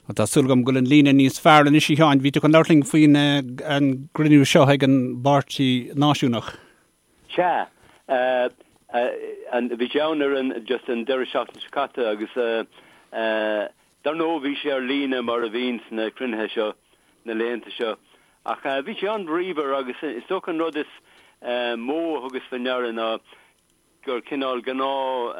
Tá súil agam go bhfuil an líne níos fearr anois, a Sheáin. Bhí tú chun labhairt linn faoin an gcruinniú seo ag an bPáirtí Náisiúnach. Sea. Bhí sé ann ar an, just an deireadh seachtaine seo caite agus dar ndóigh bhí sé ar líne mar a bhíonn sna cruinnithe seo na laethanta seo. Ach bhí sé an-bhríomhar agus is dócha an rud is mó a thugas faoi ndeara ná gur cineál gnáth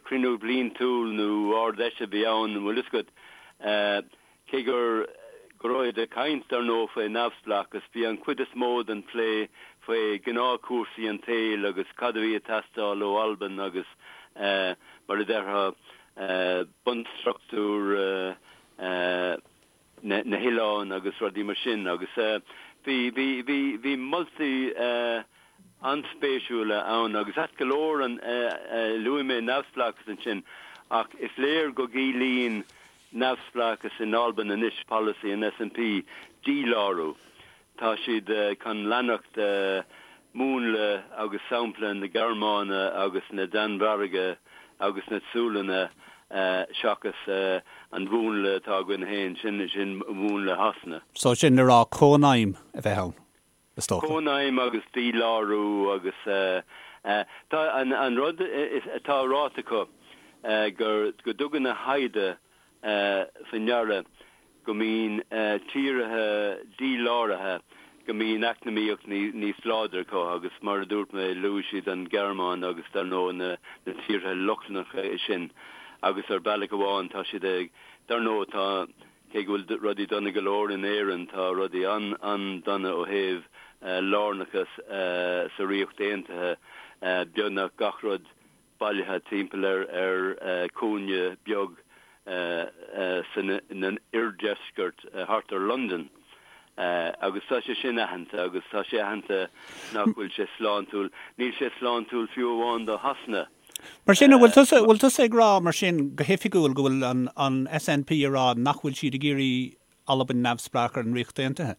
cruinniú bliantúil nó Ard-Fheis a bhí ann, an bhfuil fhios agat. Cé gur go raibh siad ag caint, dar ndóigh, faoi neamhspleáchas, bhí an chuid is mó den phlé faoi ghnáthchúrsaí an tsaoil agus cad a bhí ag teastáil ó Albain agus, mar a déarfá, bunstruchtúr na hoileáin agus rudaí mar sin agus bhí, bhí, bhí, bhí moltaí an-spéisiúla ann agus ait go leor an, luaigh mé neamhspleáchas ansin ach is léir go gciallaíonn neamhspleáchas in Albain anois polasaí an SNP, dílárú. Tá siad chun leanacht múnla agus sampla na Gearmáine agus na Danmhairge agus na Sualainne seachas an mhúnla atá againn féin, sin sin múnla Shasana. So sin le rá cónaidhm a bheith ann, is dócha. Cónaidhm agus dílárú agus tá an rud atá ráite acu gur go dtugann a thaighde faoi ndeara go mbíonn tíortha díláraithe, go mbíonn eacnamaíocht níos láidre acu agus mar a dúirt mé, luaigh siad an Ghearmáin agus dar ndóigh na tíortha Lochlannacha sin agus ar bealach amháin tá siad ag, dar ndóigh tá, cé go bhfuil rudaí dona go leor in Éirinn, tá rudaí an-dona ó thaobh lárnachas sa Ríocht Aontaithe, beagnach gach rud bailithe timpeall ar chúinne beag san oirdheisceart thart ar Londain agus tá sé sin aitheanta agus tá sé aitheanta nach bhfuil sé sláintiúil. Níl sé sláintiúil fiú amháin do Shasana. Mar sin, an bhfuil tusa, bhfuil tusa ag rá mar sin go hoifigiúil go bhfuil an an SNP ag rá nach bhfuil siad ag iarraidh Albain neamhspleách ar an Ríocht Aontaithe?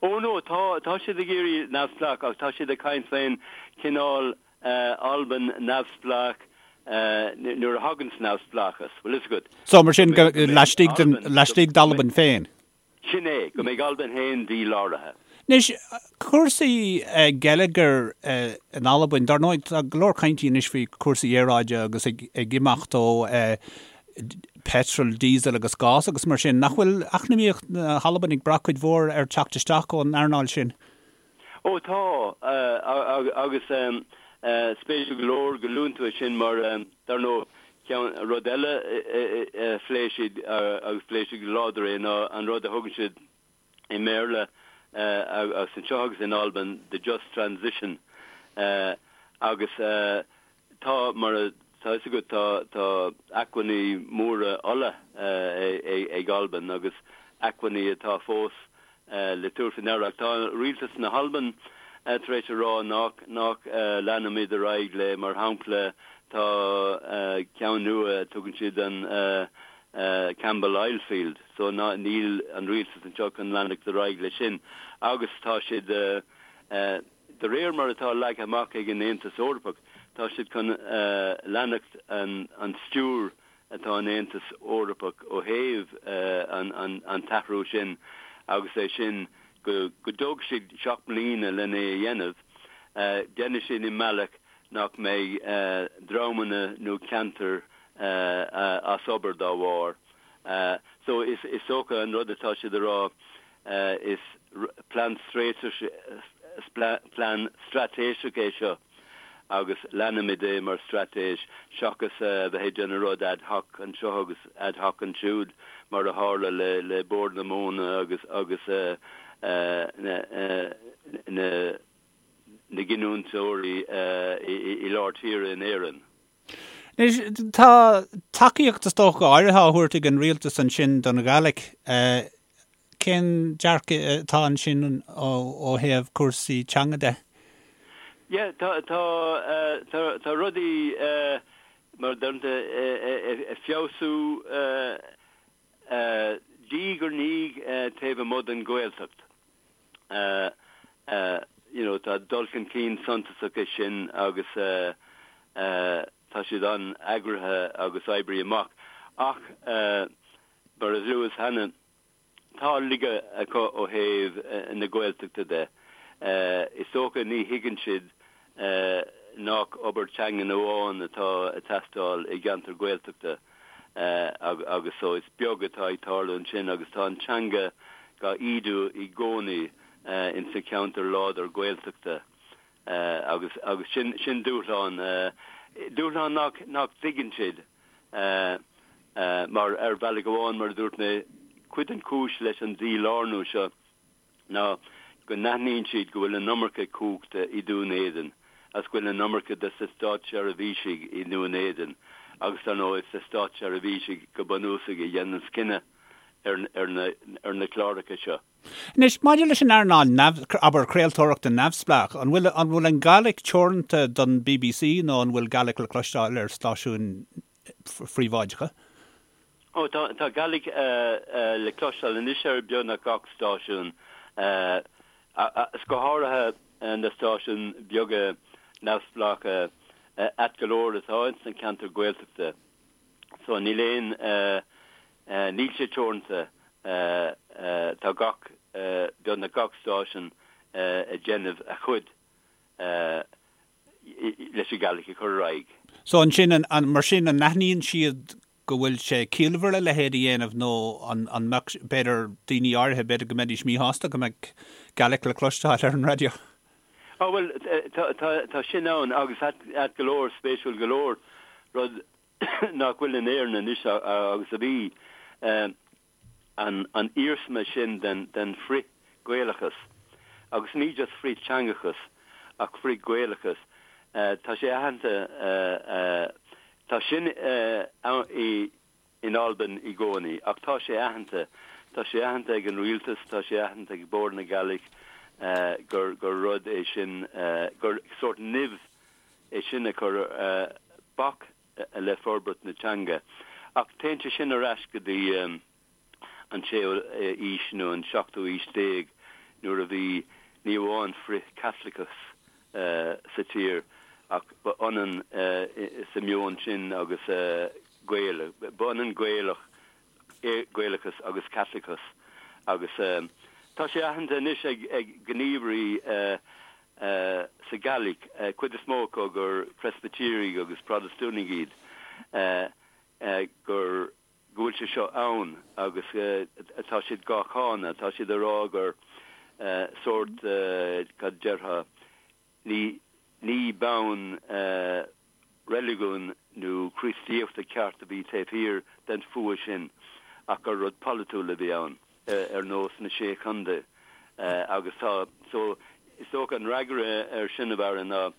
Ó no, tá, tá siad ag iarraidh neamhspleách ach tá siad ag caint faoin cineál Albain neamhspleách nuair a thaganns neamhspleáchas, bhfuil fhios agat. So mar sin, go, laistigh den, laistigh d'Albain féin? Sin é, go mbeidh Albain féin díláraithe. Anois, cúrsaí geilleagair in Albain, dar ndóigh tá go leor cainte anois faoi chúrsaí aeráide agus ag, ag imeacht ó petrol, diesel agus gás agus mar sin. Nach bhfuil eacnamaíocht na hAlban ag brath cuid mhór ar teacht isteach ón earnáil sin? Ó tá, agus spéisiúil go leor go luann tú é sin mar, dar ndóigh, ceann, rud eile a phléigh siad agus phléigh siad go láidir é ná an rud a thugann siad i mBéarla agus anseo agus in Albain, the just transition agus tá, mar atá fhios agat, tá, tá acmhainní móra ola ag Albain agus acmhainní atá fós le tabhairt faoi ndeara. Ach tá rialtas na hAlban tar éis a rá nach, nach leanfaimid ar aghaidh le, mar shampla, tá ceann nua, tugann siad an Campbell Oil Field, so ná, níl an rialtas anseo chun leanacht ar aghaidh leis sin agus tá siad, de réir mar atá leagtha amach ag an Aontas Eorpach, tá siad chun leanacht an stiúir atá an Aontas Eorpach ó thaobh an t-athrú sin agus é sin go dtógfaidh siad 7 mbliana lena é a dhéanamh, déanfaidh siad i mbealach nach mbeidh dreamanna nó ceantair as obair dá bharr. So is dócha an rud atá siad a rá is plean plean straitéiseach é seo agus leanfaimid é mar straitéis seachas a bheith ag déanamh rud ad hoc anseo agus ad hoc ansiúd mar a tharla le le Bord na Móna agus agus na na na giniúntóirí i lár tíre in Éirinn. Anois, tá tacaíocht is dócha áirithe á thabhairt ag an rialtas ansin don Ghàidhlig. Cén dearcadh atá ansin ó thaobh cúrsaí teanga de? Yeah, tá, tá, tá, tá rudaí mar a deireann ag feabhsú diaidh ar ndiaidh taobh amuigh den Ghaeltacht. You know, tá dul chun cinn suntasach é sin agus tá siad an-eagraithe agus oibrithe amach. Ach. Mar a luas cheana, tá laige acu ó thaobh na Gaeltachta de. Is dócha ní thuigeann siad nach obair teangan amháin atá ag teastáil i gceantar Gaeltachta agus so is beag atá ag tarlú ansin agus tá an teanga dhá ídiú i gcónaí ins na ceantair láidir Gaeltachta agus agus sin sin dúshlán dúshlán nach nach dtuigeann siad mar ar bhealach amháin mar a dúirt mé cuid den chúis leis an dílárnú seo ná go n-aithníonn siad go bhfuil an iomarca cumhachta i Dún Éideann agus go bhfuil an iomarca de na státseirbhísigh i nDún Éideann agus dar ndóigh is na státseirbhísigh go bunúsach a dhéananns cinneadh ar ar na cláracha seo. Anois, maidir leis an earnáil neamh, abair, craoltóireachta neamhspleách, an bhfuil, an bhfuil an Gàidhlig teoranta don bbc nó an bhfuil Gaelic le cloisteáil ar stáisiúin phríobháideacha? Ó, tá, tá Gaelic le cloisteáil anois ar beagnach gach stáisiún, is go háirithe na stáisiúin beaga neamhspleácha, ait go leor atá ins na ceantair Gaeltachta. So níl aon, níl sé teoranta, tá gach, beagnach gach stáisiún ag déanamh a chuid leis an Gàidhlig a chur ar aghaidh. So ansin, an, mar sin, an n-aithníonn siad go bhfuil sé ciallmhar a leithéid a dhéanamh nó an, an mbeadh, b'fhéidir, daoine áirithe, b'fhéidir go mbeidís míshásta go mbeadh Gaelic le cloisteáil ar an raidió? Á bhuel, tá, tá, tá sin ann agus ait, ait go leor, spéisiúil go leor, rud nach bhfuil in Éirinn anois agus a bhí, an, an iarsma sin den, den frith-Ghaelachas agus ní just frith-teangachas ach frith-Ghaelachas, tá sé aitheanta, tá sin i, in Albain i gcónaí ach tá sé aitheanta, tá sé aitheanta ag an rialtas, tá sé aitheanta ag Bord na Gàidhlig gur, gur rud é sin, gur sórt nimh é sin a chuir bac le forbairt na teanga. Ach téann sé sin ar ais go dtí an séú aois nó an seachtú aois déag nuair a bhí ní amháin frith-Chaitliceachas sa tír ach ba ionann sa meon sin agus Gael, ba ionann Gaelach, Gaelachas agus Caitliceachas agus tá sé aitheanta anois ag gníomhairí sa Ghàidhlig, cuid is mó acu gur Preispitéirigh agus Protastúnaigh iad, gur go bhfuil sé seo ann agus tá siad dhá cháineadh, tá siad ag rá gur sórt, cad déarfá, ní, ní bonn reiligiúin nó Críostaíochta ceart a bhí taobh thiar den fuath sin ach gur rud polaitiúil a bhí ann, ar nós na Sé Chontae agus tá, so is dócha an fhreagra ar sin a Bharra ná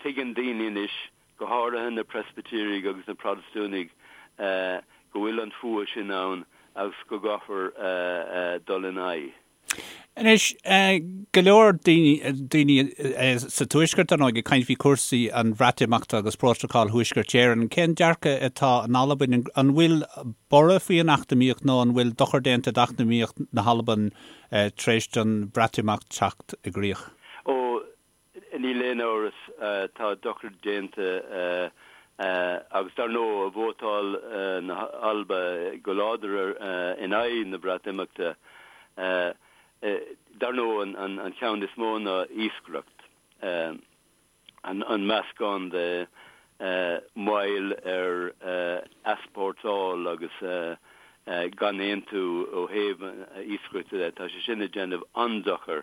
tuigeann daoine anois, go háirithe na Preispitéirigh agus na Protastúnaigh, go bhfuil an fuath sin ann agus go gcaithfear dul ina aghaidh. Anois, go leor daoine sa Tuaisceart, ar ndóigh, ag caint faoi chúrsaí an Bhreatimeachta agus Prótacal Thuaisceart Éireann. Cén dearcadh atá in Albain? An bhfuil borradh faoi an eacnamaíocht nó an bhfuil dochar déanta d'eacnamaíocht na hAlban tar éis don Bhreatimeacht teacht i gcrích? Ó, Níl aon amhras, tá dochar déanta agus dar ndóigh vótáil na hAlba go láidir in aghaidh na Breatimeachta. Dar ndóigh an ceann is mó ná iascaireacht, an meascán de mhoill ar easpórtáil agus gan aontú ó thaobh iascaireachta de, tá sé sin ag déanamh an-dochar.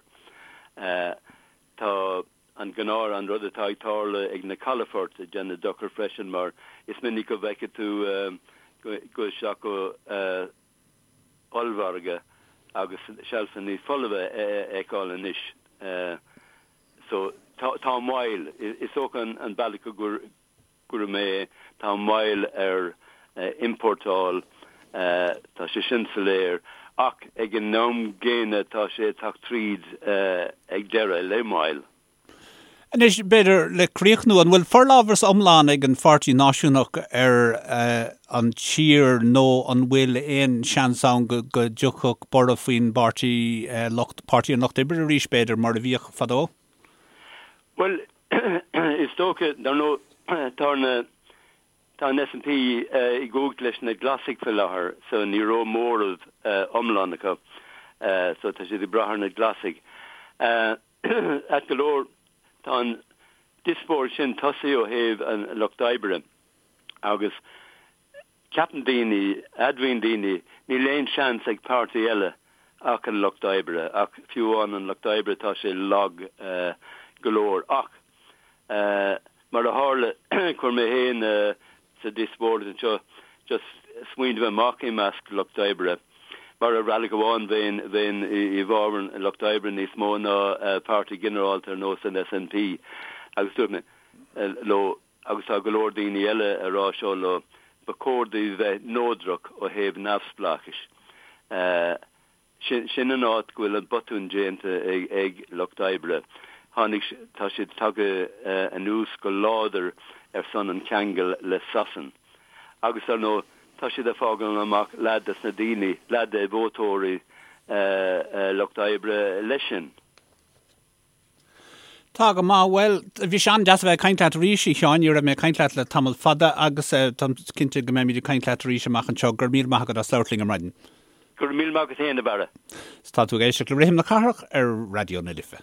Tá an gnáth, an rud atá ag tarlú ag na calafoirt ag déanamh dochar freisin mar is minic go bhfeicfidh tú go isteach go ollmhargadh agus seilfeanna folmha a fheiceáil anois. So tá moill, is dócha an bealach go gcuirfidh mé é, tá moill ar iompórtáil, tá sé sin soiléir, ach ag an am gcéanna tá sé ag teacht tríd ag deireadh le moill. Anois, b'fhéidir, le críochnú, an bhfuil forlámhas iomlán ag an Pháirtí Náisiúnach ar an tír nó an bhfuil aon seans ann go dtiocfadh borradh faoin bpáirtí, lucht, Páirtí an Lucht Oibre arís, b'fhéidir, mar a bhíodh fadó? Bhuel, Is dócha, dar ndóigh, tá na. Tá an SNP i gcumhacht leis na Glasaigh faoi láthair so ní raibh móramh iomlán acu so tá siad ag brath ar na Glasaigh. Ait go leor tá an diospóireacht sin tosaithe ó thaobh an Lucht Oibre agus ceapann daoine, admhaíonn daoine, níl aon seans ag páirtí eile ach an Lucht Oibre ach fiú amháin an Lucht Oibre tá sé lag go leor ach Mar a tharla, chuir mé féin sa díospóireacht anseo just smaoineamh amach i measc lucht oibre, mar ar bhealach amháin bheinn, bheinn i bhfabhar an lucht oibre níos mó ná páirtí ginearálta ar nós an SNP agus dúirt mé leo, agus tá go leor daoine eile a rá seo leo, ba chóir daoibh bheith neodrach ó thaobh neamhspleáchais. Sin an áit go bhfuil an botún déanta ag Lucht Oibre. Tháinig, tá siad tagtha anuas go láidir ar son an cheangail le Sasain. Agus dar ndóigh, tá siad ag fágáil amach leath des na daoine, leath de vótóirí Lucht Oibre leis sin. Tá go maith. Bhuel, bhí sé an-deas a bheith ag caint leat arís, a Sheáin. Ní raibh mé ag caint leat le tamall fada agus táim cinnte go mbeimid ag caint leat arís amach anseo. Go raibh míle maith agat as labhairt linn ar maidin. Go raibh míle maith agat féin, a Bharra. Tá tú ag éisteacht le Rithim na Cathrach ar Raidió na Life.